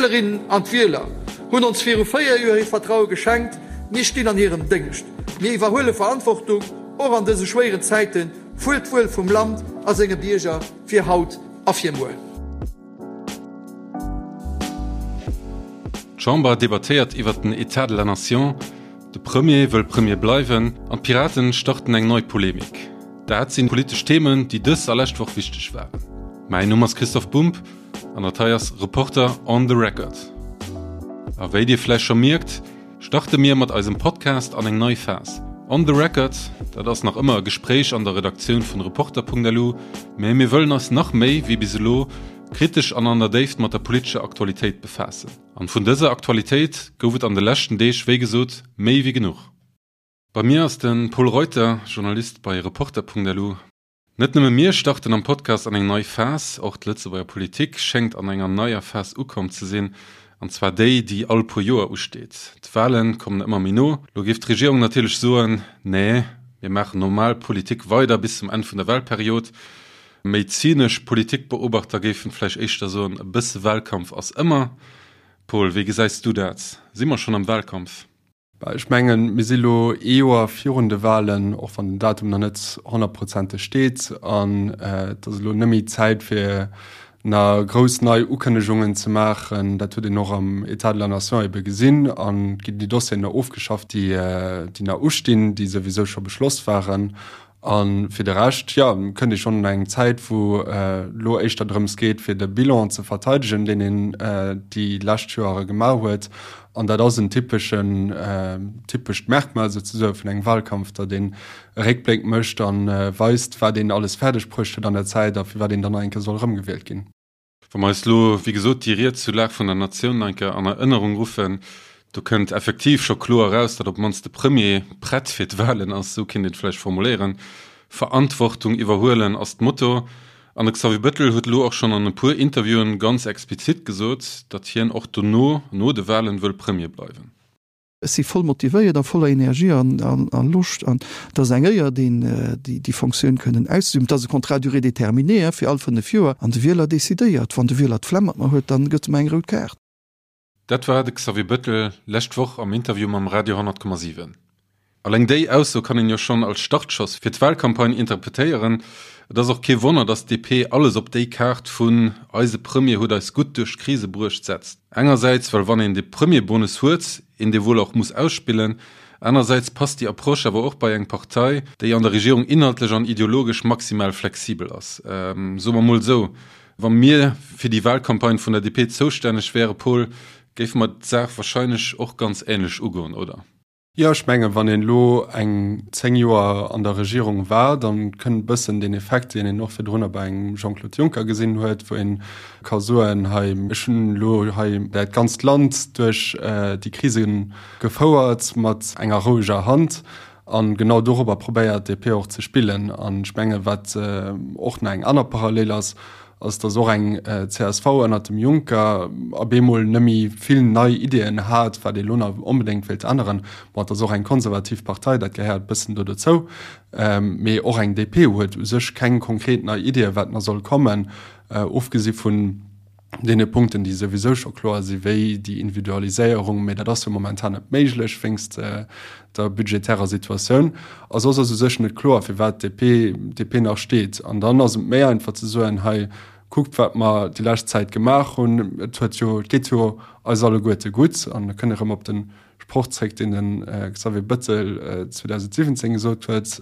D'Wielerinnen an d'Wieler hunn ons viru 4 Joer hiert Vertraue geschenkt. Mir stinn an hirem Déngscht. Mir iwwerhuele Verantwortung, och an dëse schwéieren Zäiten, fuer d'Wuel vum Land a senge Bierger, fir haut a fir muer. D'Chamber debattéiert iwwert den Etat de la Nation, de Premier wëll Premier bleiwen an d'Piraten starten eng nei Polemik. Dat sinn politesch Themen, déi dës a lescht Woch wichteg waren. Mäin Numm ass Christoph Bumb an dat hei ass Reporter on the Record. A wéi dir vläicht scho mierkt, starte mir mat eisem Podcast an eng nei Phas. On the Record, dat ass nach ëmmer e Gespréich an der Redaktioun vun Reporter.lu, mä mir wëllen eis nach méi wéi bis elo kritesch an an der Déift mat der politescher Aktualitéit befaassen. An vun dëser Aktualitéit gouf et an de leschten Deeg wéi gesot méi wéi genuch. Bei mir ass de Pol Reuter, Journalist bei Reporter.lu. Net nëmme mir starten am Podcast an eng nei Phas, och d'Lëtzebuerger Politik schéngt an enger neier Phas ukomm ze sinn, an zwar déi, déi all puer Joer usteet. D'Wale kommen ëmmer méi no. Lo géif d'Regierung natierlech soen, Nee, mir maachen normal Politik weider bis zum Enn vun der Walperiod. Méi zynesch Politikbeobachter géifen vläicht éischter soen, e bësse Walkampf ass ëmmer. Paul, wéi gesäis du dat? Si mer schonn am Walkampf? Ech mengen, mir si lo ee Joer virun de Wahlen, och wann den Datum nach net honnertprozenteg steet. An et ass elo net méi Zäit, fir nach grouss nei Ukënnegungen ze maachen. Dat huet een och am État de la Nation ebe gesinn. An et ginn déi Dossieren nach ofgeschafft, déi nach ustinn, déi souwisou scho beschloss waren. A fir de Rescht, jo, kënnt ee schonn an eng Zäit, wou elo éischter drëms geet, fir de Bilan ze verteidegen, deen een déi lescht Joere gemaach huet. An dat ass en typeschen, typescht Merkmal souzesoe vun engem Wahlkampf, datt een e Réckbléck mécht a weist, wat een alles fäerdeg bruecht huet an der Zäit a firwat een dann nach eng Kéier soll erëmgewielt ginn. Wa mer eis elo, wéi gesot, déi Ried zur Lag vun der Natioun nach eng Kéier an Erënnerung ruffen, do kënnt effektiv scho kloer eraus, datt op d'mannst de Premier prett fir d'Wahlen ass, esou kéint een et vläicht formuléieren. Verantwortung iwwerhuelen ass d'Motto. An de Xavier Bettel huet elo och schonn an e puer Interviewen ganz explizit gesot, datt hien och dono, no de Wahlen, wëll Premier bleiwen. Ech si voll motivéiert a voller Energie a Loscht an et ass eng Éier, déi Fonctioun kënnen auszeüben. Et ass e Contrat à durée déterminée fir all 5 Joer an de Wieler decidéiert. Wann de Wieler d'Flemm mat mer huet, dann gëtt e mer eng rout Kaart. Dat war de Xavier Bettel lescht Woch am Interview mam Radio 10,7. Alleng déi Ausso kann een jo schonn als Startschoss fir d'Wahlcampagne interpretéieren. Et ass och kee Wonner, datt d'DP alles op déi Kaart vun eise Premier huet eis gutt duerch d'Krise bruecht setzt. Engersäits, well wann een de Premierbonus huet, een dee wuel och muss ausspillen. Anersäits passt déi Approche awer och bei eng Partei, déi an der Regierung inhaltlech an ideologesch maximal flexibel ass. Soe mer mol esou, Wa mir fir déi Wahlcampagne vun der DP zoustänneg wäre, Paul, géife mer d'Saach wahrscheinlech och ganz änlech ugoen, oder? Jo, ech mengen, wann een elo eng 10 Joer an der Regierung war, da kënnt e bëssen deen Effekt, deen een och virdrunner bei engem Jean-Claude Juncker gesinn huet, wou ee ka soen, hei, ech hunn elo hei dat ganzt Land duerch déi Krise gefouert mat enger roueger Hand. A genau dorobber probéiert d'DP och ze spillen. An ech mengen, wat och nach eng aner Parallel ass, ass, datt och eng csv ënnert dem Juncker op eemol net méi vill nei Ideeën hat, wat ee lo nach onbedéngt wéilt änneren. Bon, et ass och eng konservativ Partei, dat gehéiert e bëssen do dozou. Mee och eng DP huet u sech keng konkret nei Ideeën, wat nach soll kommen, ofgesi vun deene Punkten, déi souwisou scho kloer si wéi déi Individualiséierung, mee dat ass jo momentan net méiglech wéinst der budgetärer Situatioun. A soss ass u sech net kloer, firwat d'DP DP nach steet. An dann ass et méi einfach ze soen, hei kuckt wat mer déi lescht Zäit gemaach hunn, et huet jo, et geet jo eis alleguerte gutt. An da kënne erëm op de Sproch zréck, deen de Xavier Bettel 2017 gesot huet,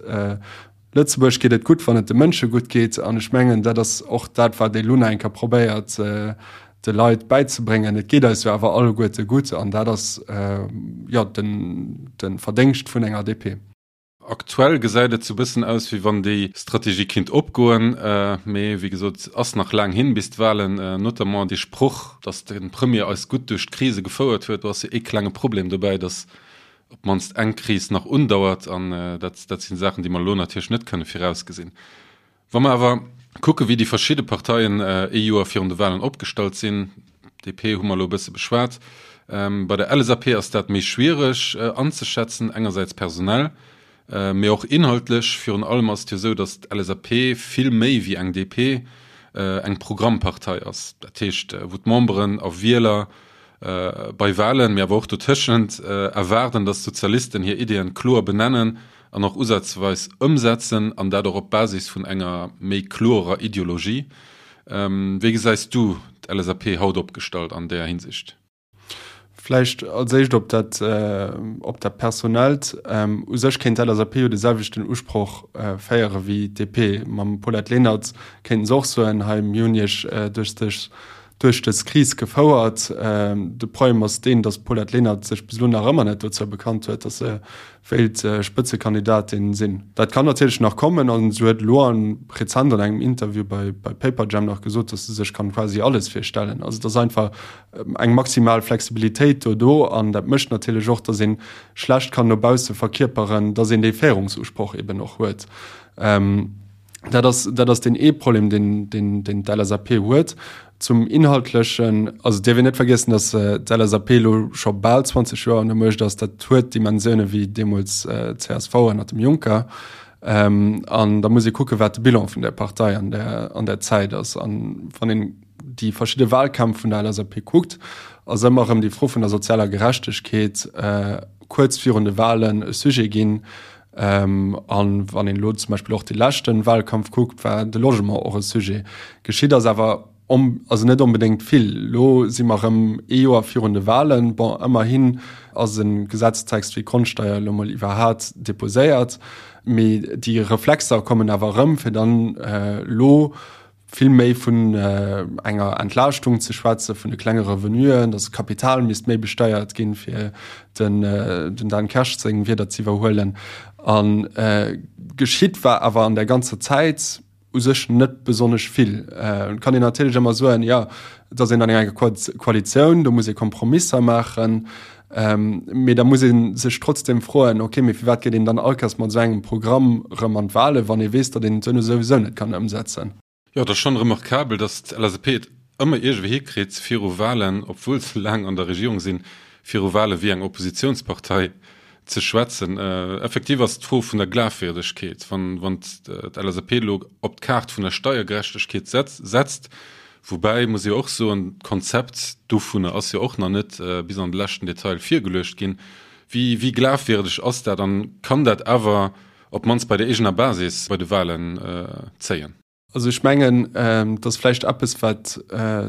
Lëtzebuerg geet et gutt, wann et de Mënsche gutt geet. An ech mengen, dat ass och dat, wat ee lo nach eng Kéier probéiert de Leit bäizebréngen. Et geet eis jo awer alleguerte gutt an dat ass jo de Verdéngscht vun enger DP. Aktuell gesäit et sou bëssen aus, wéi wann déi Strategie kinnt opgoen. Mee wéi gesot, ass nach laang hin bis d'Wahlen. Notamment dee Sproch, datt de Premier eis gutt duerch d'Krise gefouert huet, do ass jo ee klenge Problem dobäi, datt op d'mannst eng Kris nach undauert, an dat, dat sinn Saachen, déi mer elo natierlech net kënne virausgesinn. Wa mer awer kucken, wéi déi verschidde Parteien ee Joer virun de Wahlen opgestallt sinn, DP hu mer elo e bësse beschwat, bei der LSAP ass dat méi schwiereg anzeschätzen, engersäits personell, mee och inhaltlech. Virun allem ass et jo esou, datt d'LSAP vill méi wéi eng DP eng Programmpartei ass, dat heescht, wou d'Memberen a Wieler. bei Wahlen, mee awer och dotëschent, erwaarden, datt d'Sozialisten hir Ideeën kloer benennen an och usazweis ëmsetzen, an dat och op Basis vun enger méi kloerer Ideologie. Wéi gesäis du d'LSAP haut opgestallt an där Hinsicht? Vläicht als éischt op dat, op dat Personellt. U sech kéint d'LSAP jo de selwechten Usproch féiere wéi d'DP. Mam Paulette Lenert kéinten se och soen, hei mir hunn Iech duerch dës, duerch dës Kris gefouert. De Problem ass deen, datt d'Paulette Lenert sech bis elo nach ëmmer net dozou bekannt huet, datt se wéilt Spëtzekandidatin sinn. Dat kann natierlech nach kommen an se huet elo an rezent an engem Interview bei bei Paperjam nach gesot, datt se sech kann quasi alles virstellen. Also et ass einfach eng maximal Flexibilitéit do do an dat mécht natierlech och, datt ee schlecht kann no bausse verkierperen, datt een dee Féierungsusproch eben och huet. Dat ass, dat ass deen ee Problem, deen, deen, deen d'LSAP huet. Zum Inhaltlechen, also et dierf een net vergiessen, datt d'LSAP elo scho bal 20 Joer an der Muecht ass. Dat huet Dimensioune wéi deemools d'CSV ënner dem Juncker. An da muss ee kucken, wat de Bilan vun där Partei an där, an där Zäit ass. An wann een déi verschidde Wahlkämpf vun der LSAP kuckt, ass ëmmer erëm déi Fro vun der sozialer Gerechtegkeet kuerz virun de Wahlen e Sujet ginn. An wann een elo zum Beispill och dee leschte Wahlkampf kuckt, war de Logement och e Sujet. Geschitt ass awer also net onbedéngt vill. Elo si mer erëm ee Joer virun de Wahlen. Bon, ëmmerhin ass e Gesetztext wéi d'Grondsteier elo mol iwwerhat deposéiert. Mee déi Reflexer kommen awer erëm, fir dann elo vill méi vun enger Entlaaschtung ze schwätzen, vun de klenge Revenuen, datt Kapital misst méi besteiert ginn, fir den den Dan Kersch seng Wierder ze iwwerhuelen. A geschitt war awer an där ganzer Zäit u sech net besonnesch vill. Et kann een natierlech ëmmer soen, jo, et ass een an enger Koalitioun, do muss ee Kompromisser maachen. Mee da muss ee sech trotzdem froen, okay, mee firwat geet een dann all Kéiers mat esou engem Programm erëm an d'Wahlen, wann ee weess, datt een et duerno souwisou net kann ëmsetzen? Jo, et ass schonn remarkabel, datt d'LSAP et ëmmer iergendwéi hikritt, viru Wahlen, obwuel se laang an der Regierung sinn, viru Wahle wéi eng Oppositionspartei ze schwätzen. Effektiv ass d'Fro vun der Glafwierdegkeet, wann d'LSAP elo op d'Kaart vun der Steiergerechtegkeet setzt, Woubäi muss ee och soen, d'Konzept dovunner ass jo och nach net bis an de leschten Detail virgeluecht ginn. Wéi, wéi glafwierdeg ass dat an kann dat awer op d'mannst bei der eegener Basis bei de Wahlen zéien? Also ech mengen, et ass vläicht eppes, wat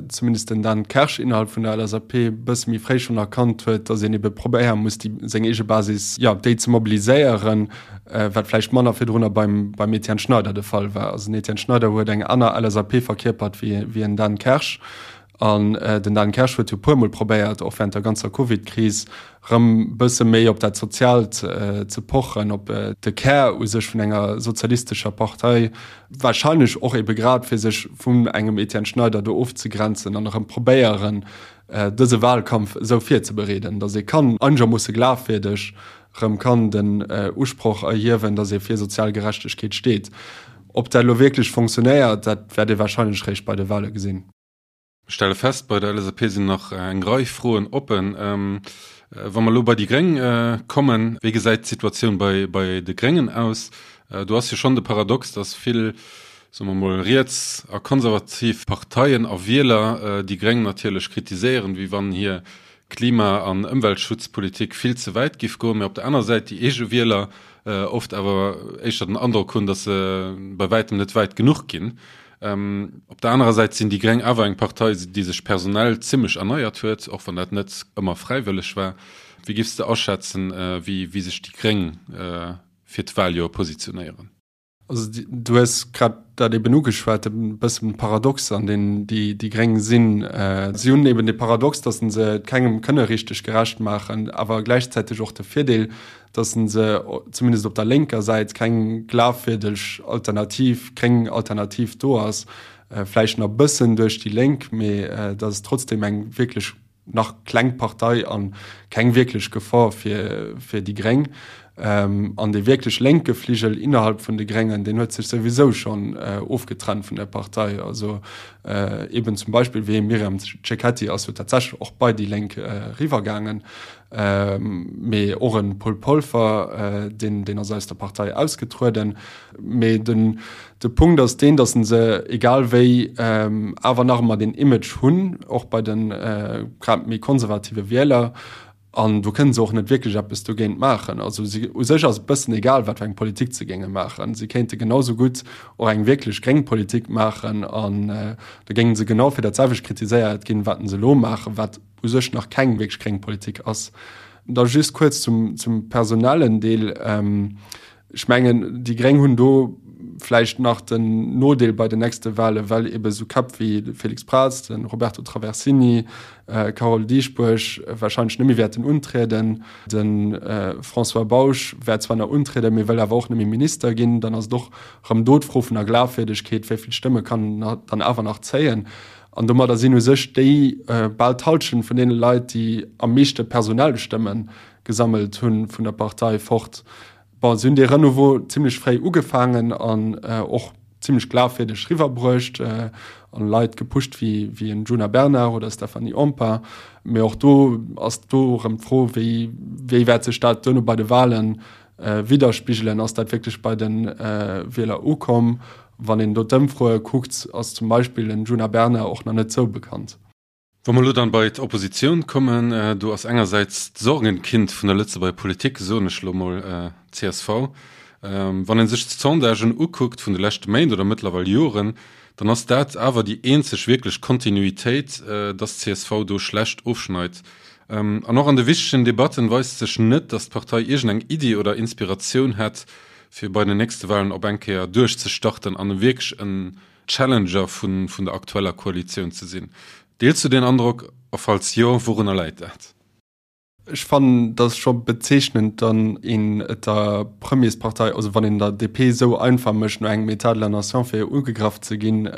zumindest den Dan Kersch innerhalb vun der LSAP e bësse méi fréi schonn erkannt huet, datt een ebe probéiere muss, déi seng eege Basis, jo, déi ze mobiliséieren. wat vläicht manner virdrunner beim, beim Etienne Schneider de Fall war. Also den Etienne Schneider huet eng aner LSAP verkierpert wéi, wéi en Dan Kersch. An äh, den Dan Kersch huet jo puermol probéiert, och während der ganzer Covid-Kris rëm bësse méi op dat Soziaalt äh, ze pochen, op äh, de Kär u sech vun enger sozialistescher Partei, wahrscheinlech och ebe grad fir sech vun engem Etienne Schneider do ofzegrenzen an erëm probéieren, äh, dëse Wahlkampf esou virzebereeden, datt ee kann einegermoosse glafwierdeg rëm kann den Usproch erhiewen, datt ee fir sozial Gerechtegkeet steet. Ob dat elo wierklech fonctionnéiert, dat wäert ee warscheinlech réischt bei de Wahle gesinn. Ech stelle fest, bei der LSAP sinn nach eng Rei Froen oppen. Wa mer elo bei déi Gréng kommen, wéi gesäit d'Situatioun bei bei de Gréngen aus? Do ass jo schonn de Paradox, datt vill, soe mer mol, riets a konservativ Parteien a Wieler déi Gréng natierlech kritiséieren, wéi wann hir Klima an Ëmweltschutzpolitik vill ze wäit giff goen, mä op der aner Säit déi eege Wieler oft awer éischter den Androck hunn, datt se bei wäitem net wäit genuch ginn. Op der anerer Säit sinn déi Gréng awer eng Partei, déi sech personell zimmlech erneiert huet, och wann dat net ëmmer fräiwëlleg war. Wéi giffs de aschätzen, wéi sech déi Gréng fir d'Wahljoer positionéieren? Also du hues grad dat eben ugeschwat, e bëssen Paradox an deen déi déi Gréng sinn. Si hunn eben de Paradox, datt se et kengem kënne richteg gerecht maachen, awer gläichzäiteg och de Virdeel, datt se zumindest op der lénker Säit keng glafwierdeg Alternativ, gréng Alternativ do ass. Vläicht nach e bëssen duerch déi Lénk, mee dat ass trotzdem eng wierklech nach kleng Partei an keng wierklech Gefor fir, fir déi Gréng. An dee wierklech lénke Fligel innerhalb vun de Gréngen, deen huet sech souwisou schonn ofgetrennt vun der Partei. Also eben zum Beispill wéi Myriam Cecchetti ass jo tatsächlech och bei déi Lénk eriwwergaangen. Mee och e Paul Polfer, deen, deen ass aus der Partei ausgetrueden. Mee den, de Punkt ass deen, datt se egal wéi awer nach ëmmer deen Image hunn, och bei de grad méi konservative Wieler. An do kënne se och net wierklech eppes dogéint maachen. Also si, u sech ass et bëssen egal, wat fir eng Politik se géinge maachen. Si kéinte genau sou gutt och eng wierklech gréng Politik maachen an da géinge se genau fir dat selwecht kritiséiert ginn, wat se elo maachen, wat u sech nach keng wierklech gréng Politik ass. Da just kuerz zum, zum personellen Deel. Ech mengen, déi Gréng hunn do vläicht nach den Nodeel bei den nächste Wahlen, well ebe sou Käpp wéi de Félix Braz, de Roberto Traversini, d'Carole Dieschbourg wahrscheinlech net méi wäerten untrieden. De François Bausch wäert zwar nach untrieden, mee wëll awer och net méi Minister ginn. Dann ass et och erëm do d'Fro vun der Glafwierdegkeet, wéi vill Stëmme kann en dann awer nach zéien? An domadder sinn u sech déi bal d'Hallschent vun deene Leit, déi am meeschte personell Stëmme gesammelt hunn, vun der Partei fort. Bon, si hunn dee Renouveau zimlech fréi ugefaangen an och zimlech glafwierdeg riwwerbruecht an Leit gepusht wéi wéi en Djuna Bernard oder Stéphanie Empain. Mee och do ass do erëm d'Fro, wéi wéi wäert sech dat duerno bei de Wahlen widderspigelen? Ass dat wierklech bei de Wieler ukomm? Wann een do d'Ëmfroe kuckt, ass zum Beispill den Djuna Bernard och nach net sou bekannt. Wa mer elo dann bei d'Oppositioun kommen, do ass engersäits d'Sorgenkind vun der Lëtzebuerger Politik, soen ech elo mol, csv. Wann ee sech d'Sondagen ukuckt vun de leschte Méint oder mëttlerweil Joren, dann ass dat awer déi eenzeg wierklech Kontinuitéit, dass csv do schlecht ofschneit. An och an de wichtegen Debatten weist sech net, dass d'Partei iergendeng Iddi oder Inspiratioun hätt, fir bei den nächste Wahlen op eng Kéier duerchzestarten an wierklech en Challenger vun der aktueller Koalitioun ze sinn. Deels du deen Androck, a falls jo, wourunner läit dat? Ech fannen, dat ass scho bezeechnend, dann een et der Premierspartei, also wann een der DP esou einfach mécht, no engem État de la nation fir ugegraff ze ginn.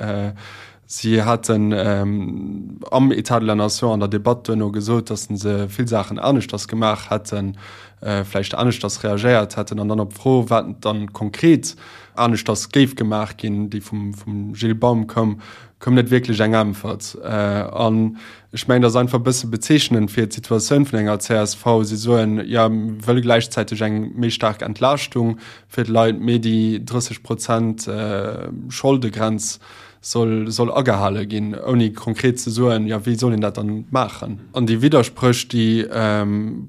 Si haten am État de la nation an der Debatt duerno gesot, datt se vill Saachen aneschters gemaach hätten, vläicht aneschters reagéiert hätten an dann op d'Fro, wat dann konkret aneschters géif gemaach ginn, déi vum Gilles Baum koum, koum net wierklech eng Äntwert. An ech mengen, dat ass einfach e bësse bezeechnend fir d'Situatioun vun enger csv. Si soen, jo, mir wëlle gläichzäiteg eng méi staark Entlaaschtung fir d'Leit, mee déi 30 Prozent Scholdegrenz soll, soll agehale ginn, ouni konkret ze soen, jo, wéi soll een dat dann maachen? An déi Widderspréch, déi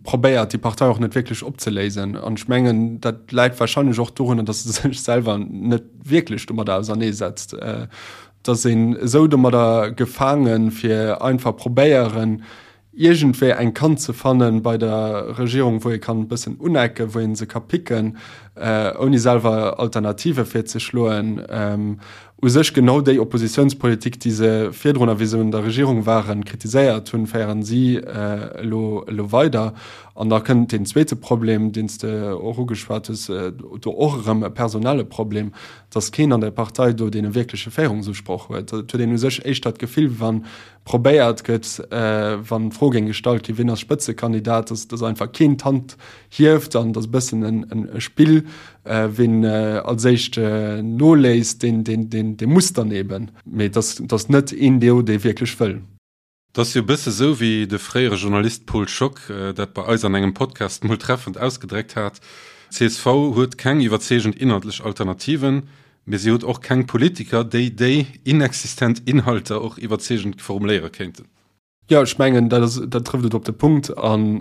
probéiert déi Partei och net wierklech opzeléisen. An ech mengen, dat läit wahrscheinlech och dorunner, datt se sech selwer net wierklech domadder auserneesetzt. Et ass een esou domadder gefaangen, fir einfach probéieren, iergendwéi eng Kant ze fannen bei der Regierung, wou ee kann e bëssen unecken, wou ee se ka picken, ouni selwer Alternative virzeschloen. U sech genau déi Oppositionspolitik, déi se virdrun, a wéi se un der Regierung waren, kritiséiert hunn, féieren si elo elo weider. An da kënnt deen zweete Problem, deen s de och ugeschwat hues, do och erëm e personelle Problem, dass keen an der Partei do dee wierkleche Féierungsusproch huet. Et huet een u sech éischter d'Gefill, wa probéiert gëtt, wann d'Fro géing gestallt ginn, wien ass Spëtzekandidat, dass dass einfach keen d'Hand hieft an dass e bëssen en e Spill, wien als éischt noléisst, deen deen deen dee muss dann eben. Mee dass dass net een do, dee wierklech wëll. Et ass jo e bësse sou, wéi de fréiere Journalist Paul Schock dat bei eis an engem Podcast mol treffend ausgedréckt hat, Csv huet keng iwwerzeegend inhaltlech Alternativen, Mee si huet och keng Politiker, déi déi inexistent Inhalter och iwwerzeegend formuléiere kéinten. Jo, ech mengen, dat ass, dat trëfft et op de Punkt an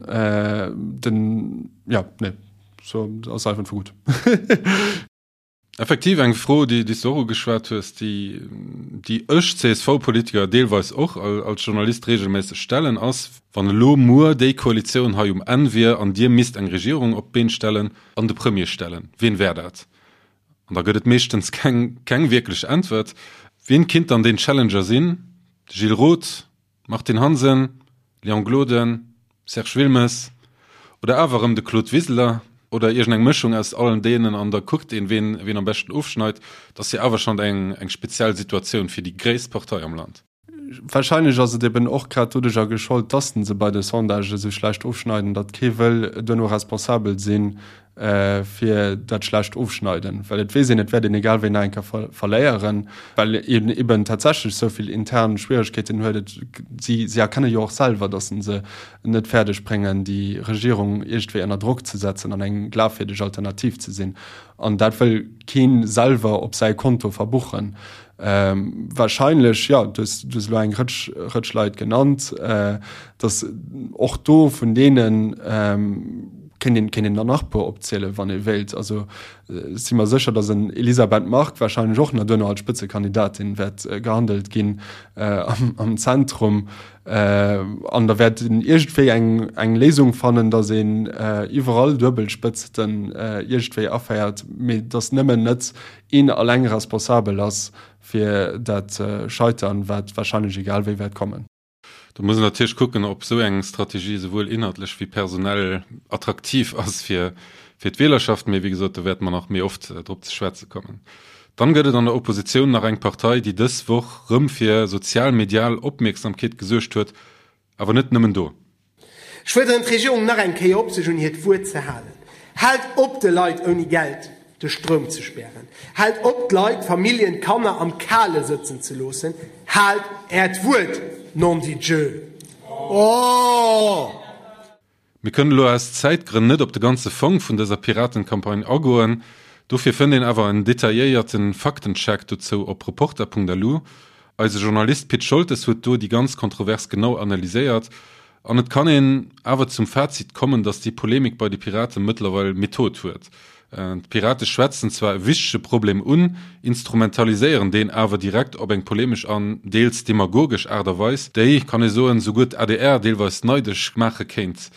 den, jo, nee, so ass einfach gutt. Effektiv eng Fro, déi s de och ugeschwat hues, déi, déi ech CSV-Politiker deelweis och als Journalist reegelméisseg stellen, ass, Wann elo muer déi Koalitioun hei um Enn wier an Dir misst eng Regierung op d'Been stellen an de Premier stellen, wien wär dat? An da gëtt et meeschtens keng, keng wierklech Äntwert. Wien kinnt dann deen Challenger sinn? De Gilles Roth? Martine Hansen? Léon Gloden? Serge Wilmes? Oder awer erëm de Claude Wiseler? Oder iergend eng Mëschung aus allen deenen an da kuckt een, ween, ween am beschten ofschneit. Et ass jo awer schonn eng, eng speziell Situatioun fir déi gréisst Partei am Land. Wahrscheinlech ass et eben och grad doduercher geschollt, dass se bei de Sondagen esou schlecht ofschneiden, datt kee wëll duerno responsabel sinn. Fir dat schlecht Ofschneiden, well et weess een, et wäert een egal wéi nach eng Kéier verléieren, well een eben tatsächlech esou vill intern Schwieregkeeten huet. Et, si, si erkenne jo och selwer, datt se net fäerdeg bréngen, déi Regierung iergendwéi ënner Drock ze setzen an eng glafwierdeg Alternativ ze sinn. An dat wëll kee selwer op säi Konto verbuchen. Wahrscheinlech, jo, du hues, du hues elo eng Rëtsch, Rëtsch Leit genannt, datt och do vun deenen kéint een, kéint een der nach e puer opzielen, wann ee wéilt. Also ech si mer sécher, datt en Elisabeth Margue wahrscheinlech och nach duerno als Spëtzekandidatin wäert gehandelt ginn am, am Zentrum. An da wäert een iergendwéi eng, eng Léisung fannen, datt een iwwerall Duebelspëtzten iergendwéi aféiert, mee datt nëmmen net een alleng responsabel ass fir dat Scheitern, wat wahrscheinlech egal wéi wäert kommen. Do muss een natierlech kucken, ob esou eng Strategie esouwuel inhaltlech wéi personell attraktiv ass fir d'Wielerschaft. Mee wéi gesot, do wäerte mer nach méi oft drop ze schwätze kommen. Dann gëtt et an der Oppositioun nach eng Partei, déi dës Woch rëm fir sozial-medial Opmierksamkeet gesuergt huet, awer net nëmmen do. Ech fuerderen d'Regierung nach eng Kéier op, sech un hiert Wuert ze halen. Haalt op, de Leit ouni Geld de Stroum ze spären. Haalt op, d'Leit, d'Familljen, d'Kanner am Kale sëtzen ze loossen. Haalt Äert Wuert, nondidieu! Mir kënnen elo aus Zäitgrënn net op de ganze Fong vun dëser Piratencampagne agoen, dofir fënnt een awer en detailléierte Faktencheck dozou op Reporter.lu. Eise Journalist Pit Scholtes huet do déi ganz Kontrovers genau analyséiert an et kann een awer zum Fazit kommen, datt déi Polemik bei de Pirate mëttlerweil Method huet. D'Pirate schwätzen zwar e wichtege Problem un, instrumentaliséieren deen awer direkt op eng polemesch an deels demagogesch Aart a Weis, déi, kann ee soen, souguer d'ADR deelweis neidesch maache kéint.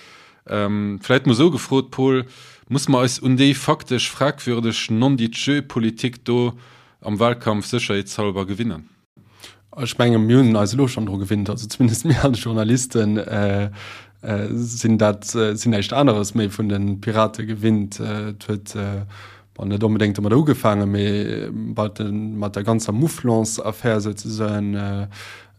Vläit mol esou gefrot, Paul, Musse mer eis un déi faktesch fragwürdeg Non-dit-je-Politik do am Wahlkampf sécherheetshalber gewinnen? Ech menge mir hunn eis elo schonn dru gewinnt, also zumindest mir als Journalisten sinn dat sinn näischt aneres méi vun de Pirate gewinnt. Et huet bon net onbedéngt domadder ugefaangen, mee mat de mat der ganzer Mouflons-Affär souzesoen,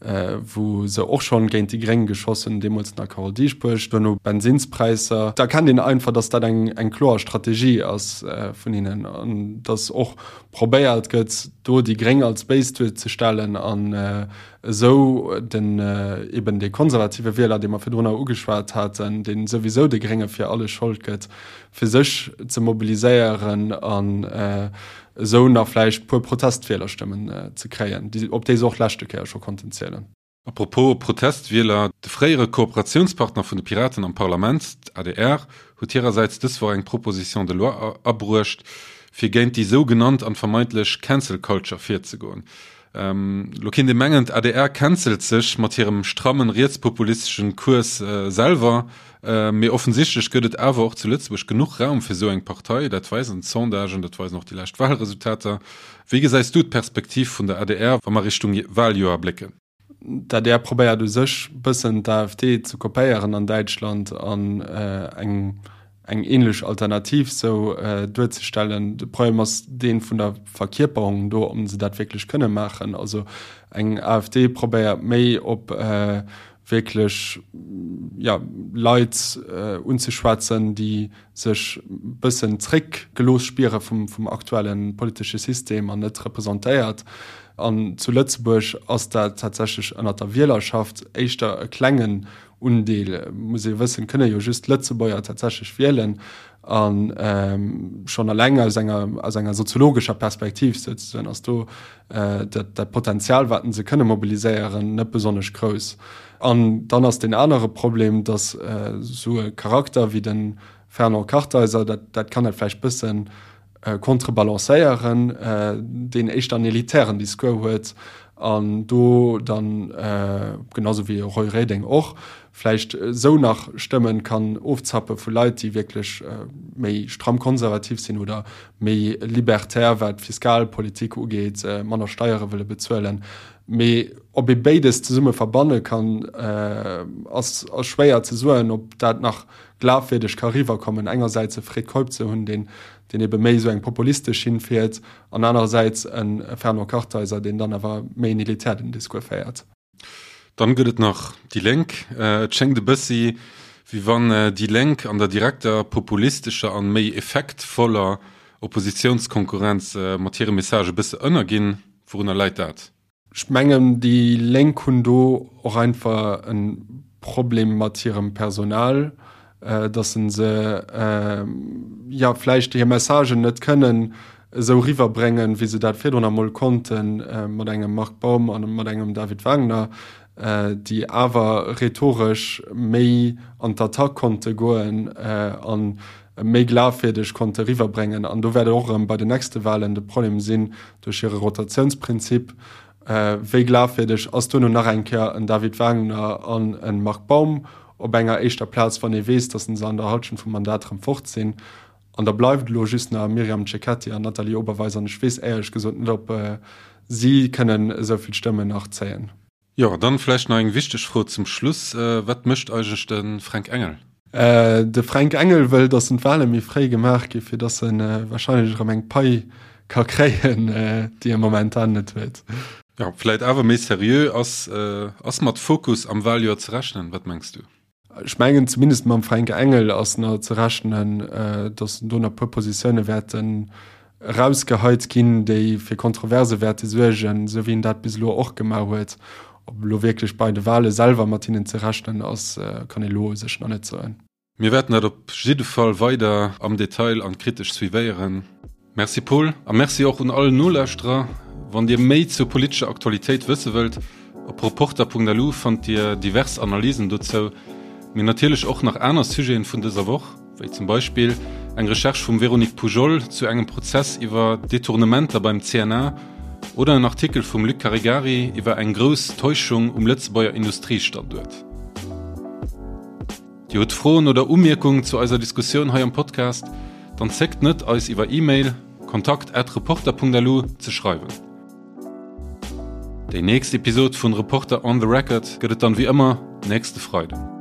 wou se och schonn géint déi Gréng geschoss hunn, deemools nach Carole Dieschbourg, duerno Bensinnspräisser. Da erkennt een einfach, datt dat eng eng kloer Strategie ass vun hinnen an datt och probéiert gëtt, do déi Gréng als béis duerzestellen an esou den eben dee konservative Wieler, dee mer virdrunner ugeschwat haten, dee souwisou de Grénge fir alles Schold gëtt, fir sech ze mobiliséieren an esou nach vläicht puer Protestwielerstëmmen ze kréien, op déi se och d'leschte Kéier scho konnten zielen. A propos Protestwieler, De fréiere Kooperatiounspartner vun de Piraten am Parlament, d'ADR, huet hirersäits dës Woch eng Proposition de loi abruecht, fir géint déi sou genannt an vermeintlech Cancel Culture virzegoen. Lo kéint ee mengen, d'ADR cancelt sech mat hirem strammen rietspopulisteschen Cours selwer, mee offensichtlech gëtt et awer och zu Lëtzebuerg genuch Raum fir sou eng Partei. Dat weisen d'Sondagen, dat weisen och déi lescht Wahlresultater. Wéi gesäis du d'Perspektiv vun der adr, wa mer Richtung Wahljoer blécken? D'adr probéiert u sech bëssen d'AfD ze kopéieren an Däitschland an eng eng ähnlech Alternativ sou duerzestellen. De Problem ass dee vun der Verkierperung do, ob se dat wierklech kënne maachen. Also eng AfD probéiert méi op wierklech jo Leit unzeschwätzen, déi sech bëssen zréck gelooss spiere vum vum aktuelle politesche System an net representéiert. An zu Lëtzebuerg ass dat tatsächlech ënnert der Wielerschaft éischter e klengen Undeel. Muss ee wëssen, kënne jo just Lëtzebuerger tatsächlech wielen. A schonn eleng aus enger aus enger soziologescher Perspektiv souzesoen ass do dat dat Potenzial, wat se kënne mobiliséieren, net besonnesch grouss. An dann ass deen anere Problem, datt esou e Charakter wéi de Fernand Kartheiser, dat dat kann dat vläicht bësse contrebalancéieren, deen éischter en elitären Discours huet an do dann, genau sou wéi e Roy Reding och, vläicht esou nach Stëmmen kann ofzappe vu Leit, déi wierklech méi stramm konservativ sinn oder méi libertär, wat d'Fiskalpolitik ugeet, manner Steiere wëlle bezuelen. Mee ob ee béides zesumme verbanne kann, ass schwéier ze soen, ob dat nach glafwierdeg ka riwwerkommen, engersäits e Fred Keup ze hunn, deen deen ebe méi esou eng populistesch Schinn fiert, an anerersäits e Fernand Kartheiser, deen dann awer méi en elitären Discours féiert. Dann gëtt et nach déi Lénk. Et schéngt e bëssi, Wéi wann déi Lénk an der direkter, populistescher an méi effektvoller Oppositiounskonkurrenz mat hire Message e bësse ënnerginn. Wourunner läit dat? Ech mengen, déi Lénk hunn do och einfach e Problem mat hirem Personal, datt se jo vläicht hir Messagen net kënnen esou riwwerbréngen, wéi se dat virdrun emol konnten mat engem Marc Baum a mat engem David Wagner, déi awer rhetoresch méi an d'Attack konnte goen a méi glafwierdeg konnte riwwerbréngen. An do wäert et och erëm bei den nächste Wahlen de Problem sinn, duerch hire Rotatiounsprinzip, wéi glafwierdeg ass duerno nach eng Kéier en David Wagner an e Marc Baum op enger éischter Plaz, wann ee weess, datt se an der Halschent vum Mandat erëm fort sinn. An da bleift elo just nach Myriam Cecchetti an Nathalie Oberweis an ech weess éierlech gesot net, ob si kënnen esou vill Stëmmen nach zéien. Jo, dann vläicht nach eng wichteg Fro zum Schluss, Wat mécht eigentlech de Fränk Engel? De Fränk Engel wëll, datt d'Wale méi fréi gemaach gi fir datt e warscheinlech erëm eng Pai ka kréien, déi e momentan net huet. Jo, vläit awer méi seriö, ass ass mat Fokus am Waljoer ze rechnen? Wat mengs du? Ech mengen, zumindest mam Fränk Engel ass nach ze rechnen, datt do nach e puer Positioune wäerten erausgeheit ginn, déi fir Kontroverse wäerte suergen, esou wéi en dat bis elo och gemaach huet. Ob elo wierklech bei de Wale selwer mat hinnen ze rechnen ass, kann ee elo u sech nach net soen. Mir wäerten dat op jidde Fall weider am Detail an kritesch suivéieren. Merci Paul a Merci och un all Nolauschterer. Wann Dir méi zur politescher Aktualitéit wësse wëllt, op reporter.lu fannt Dir divers Analysen dozou, mee natierlech och nach aner Sujeten vun dëser Woch, wéi zum Beispill eng Recherche vum Véronique Poujol zu engem Prozess iwwer Detournementer beim CNA oder en Artikel vum Luc Caregari iwwer eng grouss Täuschung um Lëtzebuerger Industriestanduert. Dir hutt Froen oder Umierkungen zu eiser Diskussioun hei am Podcast? Dann zéckt net eis iwwer E-Mail, kontakt at reporter.lu, ze schreiwen. Déi nächst Episod vun Reporter on the Record gëtt et dann wéi ëmmer nächste Freiden.